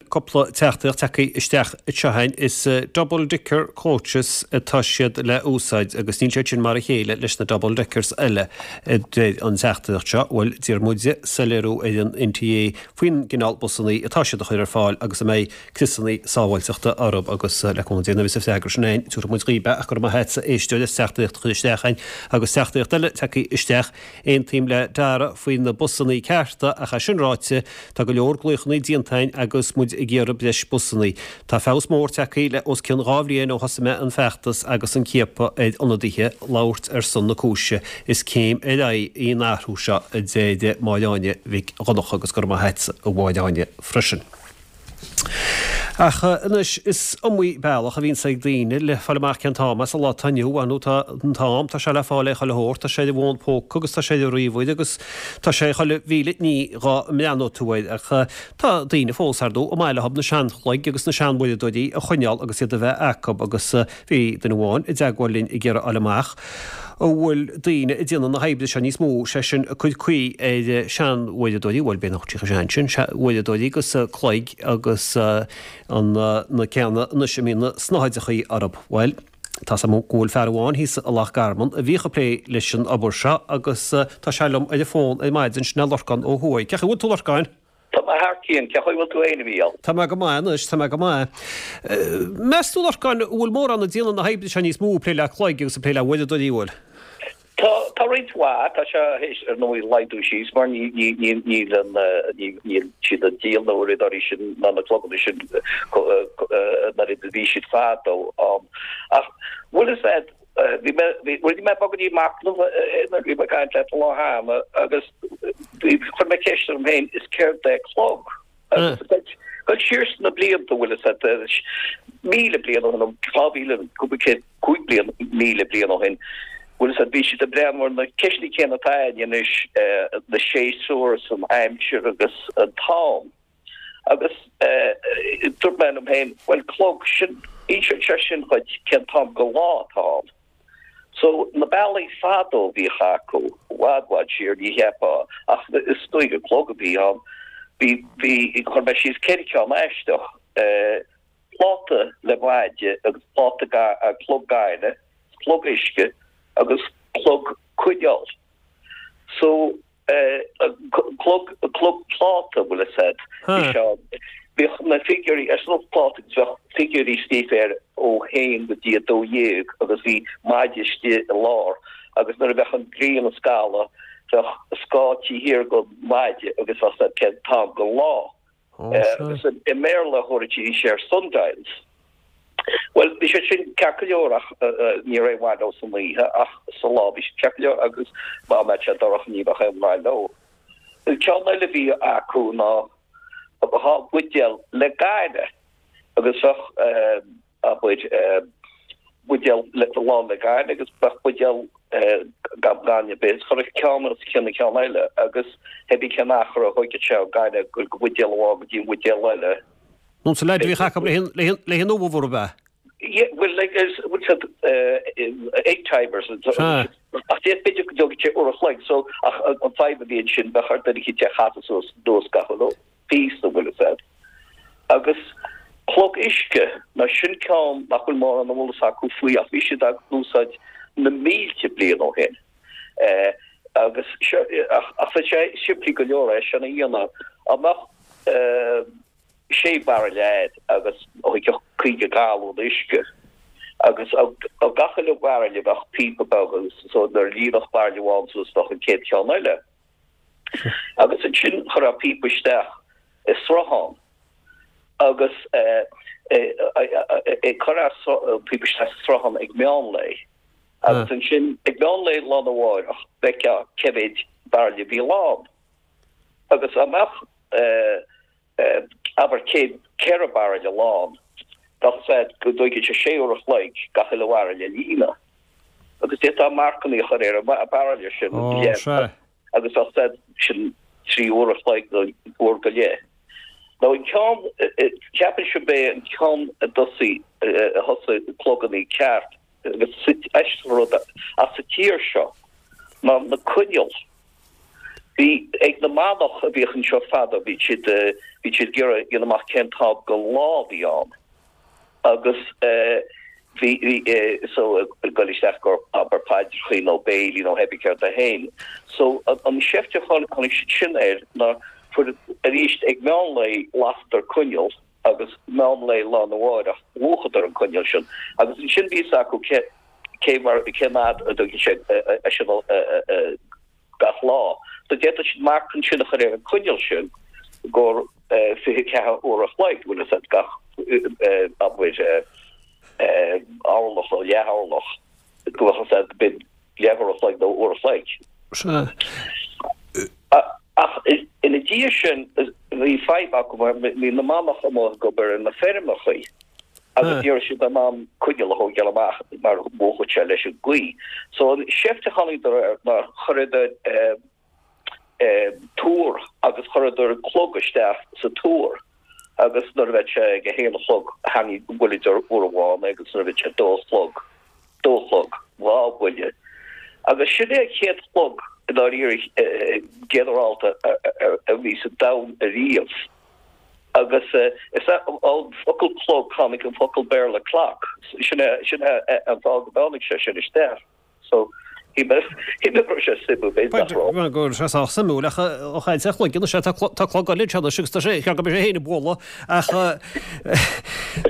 Cúpla teachtaireacht tagtha isteach anseo againn. Is double decker coaches atá siad le úsáid agus níl siad sin mar a chéile leis na double deckers eile, a deir an teachtaireacht seo. Bhuel, d'iarr muide soiléiriú ar an NTA faoin gcineál busannaí atá siad a chur ar fáil agus an mbeidh criosannaí sábháilteachta orthu agus le cúnamh Dé nuair a bheas an freagra sin againn, tabharfaidh muid dhaoib é ach go raibh maith a't, a éisteoir, as teachtaireacht a chur isteach againn agus teachtaireacht eile tagtha isteach. Aontaím le Dara faoi na busannaí cearta ach é sin ráite tá go leor glaochannaí déanta againn agus muid ag iarraidh breis busannaí. Tá feabhas mór tagtha le os cionn 2 bhliain ó thosaigh mé an feachtas agus an ciapadh ar ionadaithe labhairt ar son na cúise. Is céim ar aghaidh í an athrú seo a deir Máire Áine Mhic Dhonncha agus go raibh maith a't a Mháire Áine freisin. Ach anois, is iomaí bealach a bhíonns ag daoine le fáil amach cén t-am é sa lá atá inniu ann, nó tá an t-am, tá sé le fáil ar chuile shórt, tá sé ar an bhfón póca agus tá sé ar an ríomhaire agus tá sé ar chuile mhíle ní dhá mbreathnóidh tú air. Ach tá daoine fós, ar ndóigh, ar maith leo na seanchloig agus na seanuaireadóirí a choinneáil agus iad a bheith acu agus bhí duine amháin i dteagmháil linn ag iarraidh fháil amach an bhfuil daoine ag déanamh na hoibre seo níos mó, sé sin, ag cur caoi ar sean-uaireadóirí, bhuel, b'fhéidir nach bhfuil siad chomh sean sin, uaireadóirí agus cloig agus an, na ceanna anois a mbíonn na snáthaidreachaí orthu. Bhuel, tá's agam go bhfuil fear amháin thíos i Loch Garman a bhíodh ag plé leis an obair seo agus tá sé liom ar an bhfón ar maidin, sin é Lorcán Ó hUaidh. Cén chaoi a bhfuil tú, Lorcáin? Tá mé thar cionn. Cén chaoi a bhfuil tú fhéin, a Mhícheáil? Tá mé go maith anois, tá mé go maith. Meas tú, Lorcáin, an bhfuil mórán ag déanamh na hoibre seo níos mó, ag plé le cloig agus ag plé le huaireadóirí, an bhfuil? Tá, tá roinnt mhaith. Tá sé théis, ar ndóigh, laghdú síos mar ní, ní, ní, níl an, ní, níl siad ag díol na huaireadóirí sin ná na cloganna sin an oiread a bhí siad fadó. Ach bhfuil fhios a'd, Bhí mé, bhí, rinne mé beagáinín machnaimh nuair a bhí mé ag caint leat an lá cheana agus bhí, chuir mé ceist orm féin, is céard é clog? Agus dul siar sna blianta, bhfuil fhios a'd, 1,000 bliain ó shin, nó 2,000, cúpla céad, 5 bliain, 1,000 bliain ó shin, bhfuil fhios a'd, bhí siad ag breathnú ar na ceisteanna céanna atá againn anois, na séasúir is an aimsir agus an t-am. Agus dúirt mé liom féin, bhuel, clog, sin, inseoidh sé sin dhuit cén t-am den lá atá ann. So, na bealaí fadó a bhíodh acu, i bhfad, bhfad siar, ní cheapfá, ach is dóigh gur clog a bhí ann. Bhí, bhí, chuir mé síos ceithre cheann aisteach, pláta le maide agus pláta ga, clog gainimh, clog uisce agus clog coinneal. So, Clog, clog pláta, bhfuil fhios a'd. Bhí sé ann. Bhíodh na figiúirí ar an phláta agus bheadh figiúirí scríofa air ó haon go dtí 12 agus bhí maide istigh i lár agus nuair a bheadh an ghrian ag scaladh bheadh scáth taobh thiar den mhaide agus bheadh fhios a'd cén t-am den lá. Agus i mBéarla thabharfaidís air sundials. Bhuel, bhí siad sin ceart go leor ach ní raibh aon mhaith leo san oíche ach sa lá bhí siad ceart go leor agus dá mbeadh sé dorcha ní bheadh aon mhaith leo. An ceann eile a bhí acu ná dhá bhuidéal le gaineamh agus bheadh abair, buidéal lán le gaineamh agus bheadh buidéal gan gaineamh ar bith. Chuirfeá ceann os cionn an ceann eile agus thébí cén achar a thóigfeadh sé an gaineamh ag goil den bhuidéal amháin go dtí an bhuidéal eile. Nó sa leid a bhíodh acu le haghaidh an ubh arbh ea? Yeah, well, like, is, bhfuil siad egg timers Sea. Ach b'fhéidir go dtógfaidh sé uair a chloig, so, ach an fadhb a bhí ansin, bheadh ar duine eicínt é a chasadh suas anuas gach uile píosa, bhfuil fhios a'd. Agus clog uisce, now sin ceann nach bhfuil mórán eolas acu faoi ach bhí siad á úsáid na mílte bliain ó shin. Agus seo, ach ach bhí sé simplí go leor é sin a dhéanamh. Dá mbeadh sé bhairille a'd agus thógfadh 50 galún uisce agus ó gach uile bhairille bheadh píopa beag agus so nuair a líonfadh bairille amháin suas bheadh an chéad cheann eile. Agus ansin chuirfeá píopa isteach i sruthán agus chuirfeá píopa isteach sa sruthán ag meán lae. Agus ansin ag meán lae lá arna mháireach bhfeicfeá cé mhéid bairille a bhí lán. Agus dá mbeadh abair 104 bairille lán, bheadh fhios a'd go dtóigfeadh sé sé uair a chloig gach uile bhairille a líonadh. Agus d'fhéadfá marcannaí a chur ar an bhairille sin agus bheadh fhios a'd sin 3 uair a chloig nó uair go leith. Now an ceann, ceapaimse gurb é an ceann a dtosaigh, a thosaigh clogannaí ceart agus aisteach an rud as sa tír seo ná na coinneal. Bhí ag na manach a bhíodh anseo fadó, bhí siad, bhí siad ag iarraidh dhéanamh amach cén t-am go lá a bhí ann agus bhí, bhí, so ag goil isteach gur abair paidreachaí nó béilí nó hébí céard é féin. So an seift a tháinig siad sin air ná fuair arís ag meán lae lasadar coinneal agus meán lae lá arna mháireach mhúchadar an coinneal sin agus ansin bhí fhios acu cé cé mar cén fhad a dtugann sé sin gach lá. So d'fhéadfadh siad marc ansin a chur ar an coinneal sin gur 24 uair a chloig, bhfuil fhios agat, gach abair orlach nó leath orlach go bhfuil fhios agat b'in leathuair a chloig nó uair a chloig. Sea. Ach ina dhiaidh sin bhí fadhb acu mar bhí na manaigh amuigh ag obair ar na feirmeachaí agus ní raibh siad in ann coinneal a thógáil amach mar mhúchfadh sé leis an gaoth. So an seift a tháinigdar air ná chuireadar túr agus chuireadar clog isteach sa túr agus nuair a bheadh sé ag a haon a chlog tharraing bhuaileadar uair amháin é agus nuair a bheadh sé dó a chlog dó a chlog dhá bhuille agus sin é an chéad chlog i ndáiríre ginearálta a bhí sa domhan ariamh agus is ón focal clog tháinig an focal Béarla clock sin é sin é an fáth go dtáinig sé sin isteach. So, shíl mé go raibh sé suimiúil, b'fhéidir nach raibh. Bhuel, go raibh sé sách suimiúil, ach ó chaint ar chloigeann, is ea, tá clog eile anseo anois agus tá sé, cheart go mbeadh sé féin ag bualadh, ach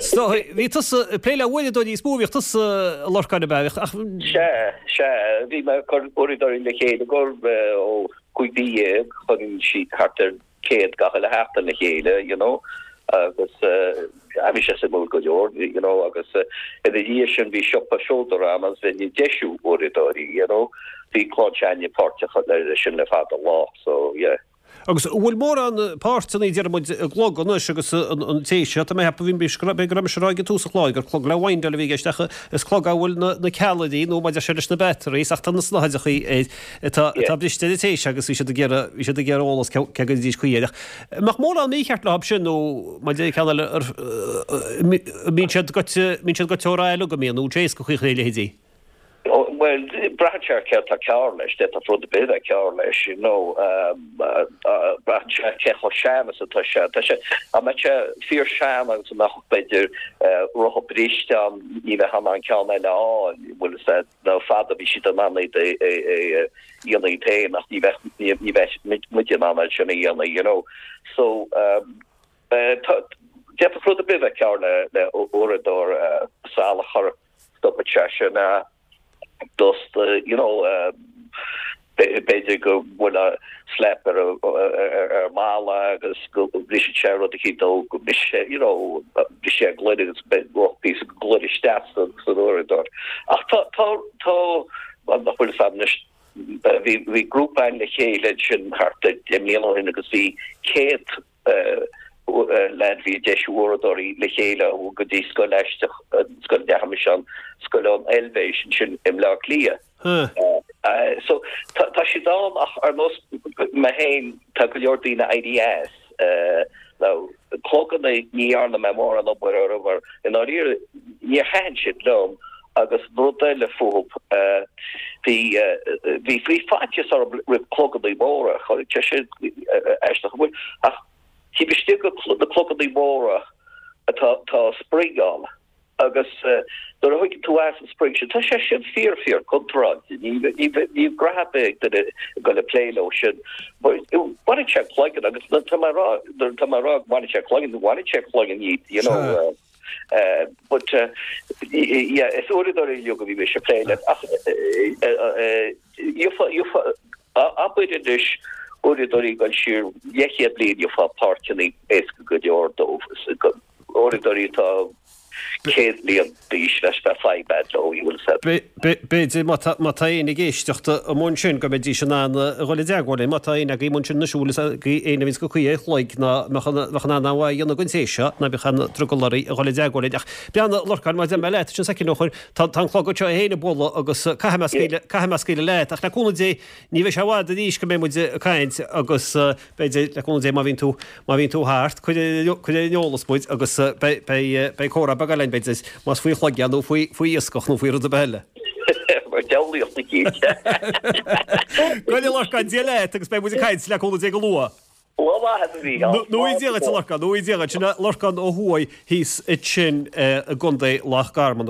so, bhí tusa ag plé le huaireadóirí is mó a bhíodh tusa, a Lorcáin, ab ea? Ach. Sea, sea, bhí mé ag cur uaireadóirí le chéile gur ó 15 mhí, chuirinn siad thart ar 100 gach uile sheachtain le chéile, you know, agus bhí sé suimiúil go leor, you know, agus ina dhiaidh sin bhí siopa seodra ann agus bheinn ag deisiú uaireadóirí, you know, bhí clann s'againne páirteach leis sin le fada an lá, so yeah. Agus an bhfuil mórán páirteanna, deir muid, i gclog anois agus an té seo, tá mé ag ceapadh, b'fhéidir go raibh mise ag rá ag tús an chláir gur clog le windáil a bhí i gceist ach is clog a bhfuil na ceallraí nó mar a deir sé leis na batteries ach tá na snáthaidreachaí air atá atá briste ar an té seo agus bhí siad ag iarraidh bhí siad ag iarraidh eolas cé go dtéidís caoi air ach an mbeadh mórán mícheart leo sin nó mar a deir ceann eile ar an mbíonn siad goite mbíonn siad goite ó rath uilig an mbíonn nó an éasca caoi a chur ar a leithéidí. Bhuel, braitheann sé ar céard atá cearr leis, d'fhéadfadh rud ar bith a bheith cearr leis, you know, braitheann sé cé chomh sean is atá sé. Tá sé, dá mbeadh sé fíor sean agus a mbeadh b'fhéidir rotha briste ann, ní bheifeá in ann ceann eile a fháil, bhfuil fhios a'd. Nó fadó bhí siad in ann iad a dhéanamh iad féin ach ní bheadh ní bheadh muide in ann é sin a dhéanamh you know. So tá d'fhéadfadh rud ar bith bheith cearr le le uaireadóir salachar stopann sé sin dust you know b'fhéidir go bhfuil slap ar ar mballa agus go mbriseann sé rud eicínt nó go mbriseann sé you know briseann sé gloine agus beidh píosa gloine isteach san san uaireadóir. Ach tá tá tá nach bhfuil fhios a'm anois bhí bhí grúpa againn le chéile ansin thart ar 10 mbliana ó shin agus bhí 100 leaid bhí ag deisiú uaireadóirí le chéile go dtí scoil aisteach, scoil a ndeachaigh mise ann, scoil ón Eilvéis ansin i mBleá Cliath. So tá siad ann ach ar nós mé féin tá go leor daoine éirí as. Now cloganna ní dhearna mé mórán obair orthu mar i ndáiríre níor thaitin siad liom agus rud eile fúthu bhí bhí bhí faitíos orm roimh cloganna móra, tá sé aisteach an bhfuil ach taobh istigh de na cloganna móra tá tá spring ann agus nuair a thuigeann tú as an spring sin tá sé sin fíor fíor contráilte ní ní ní grá ar bith ag duine ag dul ag plé leo sin baineann sé cloigeann agus tá mé rá tá mé rá baineann sé cloigeann baineann sé cloigeann iad you know But yeah, is uaireadóirí uilig a bhí mise ag plé le ach gheofá abair anois uaireadóirí ag dul siar leathchéad bliain gheofá páirteanna éasca go leor dóibh. Uaireadóirí atá 100 bliain d'aois leis bheadh fadhb a'd leo, you will said. B'fhéidir má tá éinne ag éisteacht amuigh ansin go mbeidís in ann a dhul i dteagmháil linn, má tá éinne agaibh amuigh ansin anois a bhfuil fhios agaibh éinne a bhíonns go cuí ar chloig ná mbeadh in ann an mhaith a dhéanamh den té seo, ná bíodh aon drogall oraibh a dhul i dteagmháil linn. Ach breathnaigh, a Lorcáin, mar a deir mé leat ansin soicind ó shoin, tá an clog anseo é féin ag bualadh agus caithfidh mé scaoileadh, caithfidh mé scaoileadh leat. Ach le cúnamh Dé, ní bheidh sé i bhfad arís go mbeidh muid ag caint agus b'fhéidir, le cúnamh Dé, má bhíonn tú, má bhíonn tú thart, cuir ar an eolas muid agus beidh, beidh, beidh comhrá beag eile againn, b'fhéidir, más faoi chloig é nó faoi, faoi iascach nó faoi rud ar bith eile. diabhlaíocht eicínt. Go a Lorcáin, Dia leat agus beidh muid ag caint le cúnamh Dé go luath. Lá maith agat a Mhícheál. Nó Dia duit a Lorcáin, nó Dia duit. Sin é Lorcán Ó hUaidh thíos ansin i gContae Loch Garman.